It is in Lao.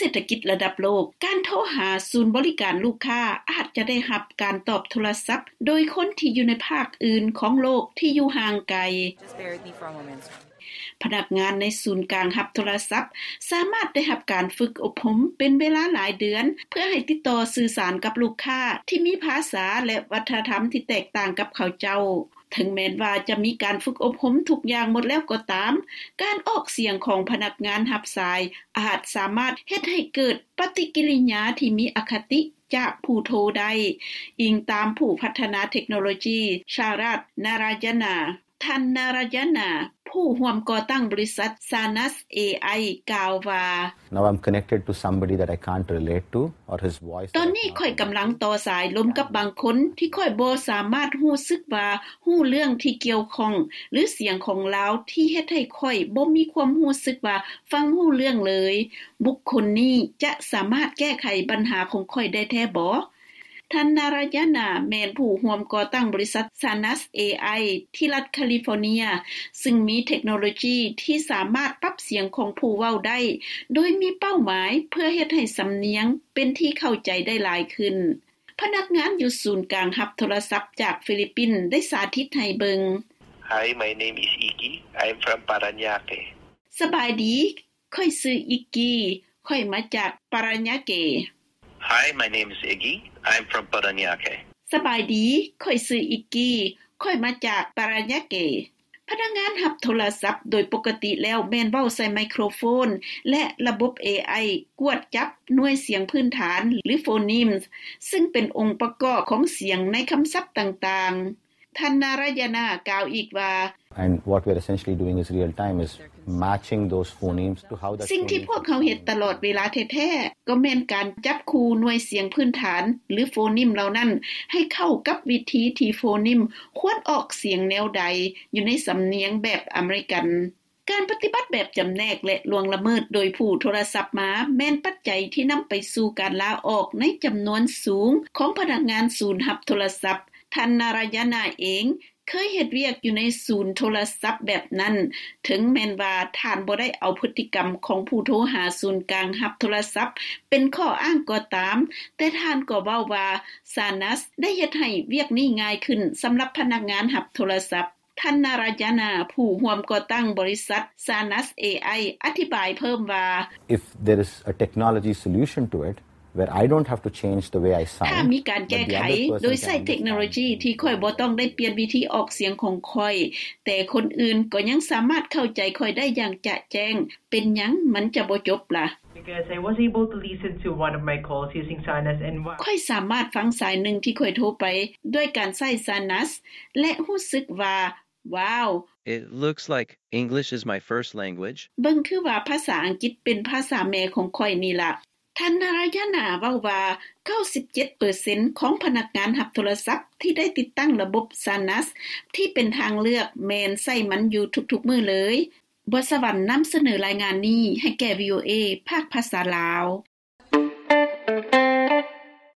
ເສດຖະກິດລະດັບໂລກ, ການໂທຫາສູນບໍລິການລູກຄ້າອາດຈະໄດ້ຮັບການຕອບໂທລະສັບໂດຍຄົນທີ່ຢູ່ໃນພາກອື່ນຂອງໂລກທີ່ຢູ່ຫ່າງໄກ. Just bear with me for a moment. ພະນັກງານໃນສູນກາງຮັບໂທລະສັບສາມາດໄດ້ຮັບການຝຶກອົບຮົມເປັນເວລາຫຼາຍເດືອນ ເພື່ອໃຫ້ຕິດຕໍ່ສື່ສານກັບລູກຄ້າທີ່ມີພາສາ ແລະ ວັດທະນະທຳທີ່ແຕກຕ່າງກັບເຂົາເຈົ້າ. ເຖິງແມ່ນວ່າຈະມີການຝຶກອົບຮົມທຸກຢ່າງໝົດແລ້ວກໍຕາມ, ການອອກສຽງຂອງພະນັກງານຮັບສາຍອາດສາມາດເຮັດໃຫ້ເກີດປະຕິກິລິຍາທີ່ມີອະຄະຕິຈາກຜູ້ໂທໄດ້, ອີງຕາມຜູ້ພັດທະນາເທັກໂນໂລຈີ ຊາຣັດ ນາຣາຍະນາ. ທ່ານ ນາຣາຍະນາ ຜູ້ຮ່ວມກໍ່ຕັ້ງບໍລິສັດ Sanas ເອໄອ ກ່າວວ່າ, Now I'm connected to somebody that I can't relate to, or his voice ຕອນນີ້ຂ້ອຍກຳລັງຕໍ່ສາຍລົມກັບບາງຄົນທີ່ຂ້ອຍບໍ່ສາມາດຮູ້ສຶກວ່າຮູ້ເລື່ອງທີ່ກ່ຽວຂ້ອງ ຫຼື ສຽງຂອງລາວທີ່ເຮັດໃຫ້ຂ້ອຍບໍ່ມີຄວາມຮູ້ສຶກວ່າຟັງຮູ້ເລື່ອງເລີຍ. ບຸກຄົນນີ້ຈະສາມາດແກ້ໄຂບັນຫາຂອງຂ້ອຍໄດ້ແທ້ບໍ? ທ່ານ ນາຣາຍະນາ ແມ່ນຜູ້ຮ່ວມກໍ່ຕັ້ງບໍລິສັດ Sanas ເອໄອ ທີ່ລັດຄາລິຟໍເນຍ, ຊຶ່ງມີເທັກໂນໂລຈີທີ່ສາມາດປັບສຽງຂອງຜູ້ເວົ້າໄດ້ ໂດຍມີເປົ້າໝາຍເພື່ອເຮັດໃຫ້ສຳນຽງເປັນທີ່ເຂົ້າໃຈໄດ້ຫຼາຍຂຶ້ນ. ພະນັກງານຢູ່ສູນກາງຮັບໂທລະສັບຈາກຟີລິບປິນໄດ້ສາທິດໃຫ້ເບິ່ງ. Hi, my name is Iggy. I'm from Parañaque. ສະບາຍດີ, ຂ້ອຍຊື່ ອີກກີ, ຂ້ອຍມາຈາກປາຣາຍາເກ. Hi, my name is Iggy. I'm from Parañaque. ສະບາຍດີ, ຂ້ອຍຊື່ ອີກກີ, ຂ້ອຍມາຈາກປາຣາຍາເກ. ພະນັກງານຮັບໂທລະສັບໂດຍປົກກະຕິແລ້ວແມ່ນເວົ້າໃສ່ໄມໂຄຣໂຟນ ແລະ ລະບົບ ເອໄອ ກວດຈັບໜ່ວຍສຽງພື້ນຖານ ຫຼື Phonemes, ຊຶ່ງເປັນອົງປະກອບຂອງສຽງໃນຄຳສັບຕ່າງໆ. ທ່ານ ນາຣາຍະນາ ກ່າວອີກວ່າ, And what we're essentially doing is real time, is matching those phonemes to how that ສິ່ງທີ່ພວກເຮົາເຮັດຕະຫຼອດເວລາແທ້ໆ ກໍແມ່ນການຈັບຄູ່ໜ່ວຍສຽງພື້ນຖານ ຫຼື Phoneme ເຫຼົ່ານັ້ນ ໃຫ້ເຂົ້າກັບວິທີທີ່ Phoneme ຄວນອອກສຽງແນວໃດ ຢູ່ໃນສຳນຽງແບບອາເມລິກັນ. ການປະຕິບັດແບບຈຳແນກ ແລະ ລ່ວງລະເມີດໂດຍຜູ້ໂທລະສັບມາ ແມ່ນປັດໄຈທີ່ນຳໄປສູ່ການລາອອກໃນຈຳນວນສູງຂອງພະນັກງານສູນຮັບໂທລະສັບ. ທ່ານ ນາຣາຍະນາເອງ ເຄີຍເຮັດວຽກຢູ່ໃນສູນໂທລະສັບແບບນັ້ນ, ເຖິງແມ່ນວ່າທ່ານບໍ່ໄດ້ເອົາພຶດຕິກຳຂອງຜູ້ໂທຫາສູນກາງຮັບໂທລະສັບເປັນຂໍ້ອ້າງກໍຕາມ, ແຕ່ທ່ານກໍເວົ້າວ່າ Sanas ໄດ້ເຮັດໃຫ້ວຽກນີ້ງ່າຍຂຶ້ນສຳລັບພະນັກງານຮັບໂທລະສັບ. ທ່ານ ນາຣາຍະນາ ຜູ້ຮ່ວມກໍ່ຕັ້ງບໍລິສັດ Sanas ເອໄອ ອະທິບາຍເພີ່ມວ່າ, If there is a technology solution to it, where I don't have to change the way I sound, ຖ້າມີການແກ້ໄຂໂດຍໃຊ້ເທັກໂນໂລຈີທີ່ຂ້ອຍບໍ່ຕ້ອງໄດ້ປ່ຽນວິທີອອກສຽງຂອງຂ້ອຍ, ແຕ່ຄົນອື່ນກໍຍັງສາມາດເຂົ້າໃຈຂ້ອຍໄດ້ຢ່າງຈະແຈ້ງ, ເປັນຫຍັງມັນຈະບໍ່ຈົບລະ? Because I was able to listen to one of my calls using Sanas and wow. ຂ້ອຍສາມາດຟັງສາຍໜຶ່ງທີ່ຂ້ອຍໂທໄປດ້ວຍການໃຊ້ Sanas ແລະ ຮູ້ສຶກວ່າ ວ້າວ! It looks like English is my first language. ເບິ່ງຄືວ່າພາສາອັງກິດເປັນພາສາແມ່ຂອງຂ້ອຍນີ້ລະ. ທ່ານ ນາຣາຍະນາ ເວົ້າວ່າ ເກົ້າສິບເຈັດເປີເຊັນ ຂອງພະນັກງານຮັບໂທລະສັບທີ່ໄດ້ຕິດຕັ້ງລະບົບ Sanas ທີ່ເປັນທາງເລືອກ ແມ່ນໃຊ້ມັນຢູ່ທຸກໆມື້ເລີຍ. ບົວສະຫວັນນຳສະເໜີລາຍງານນີ້ໃຫ້ແກ່ VOA ພາກພາສາລາວ.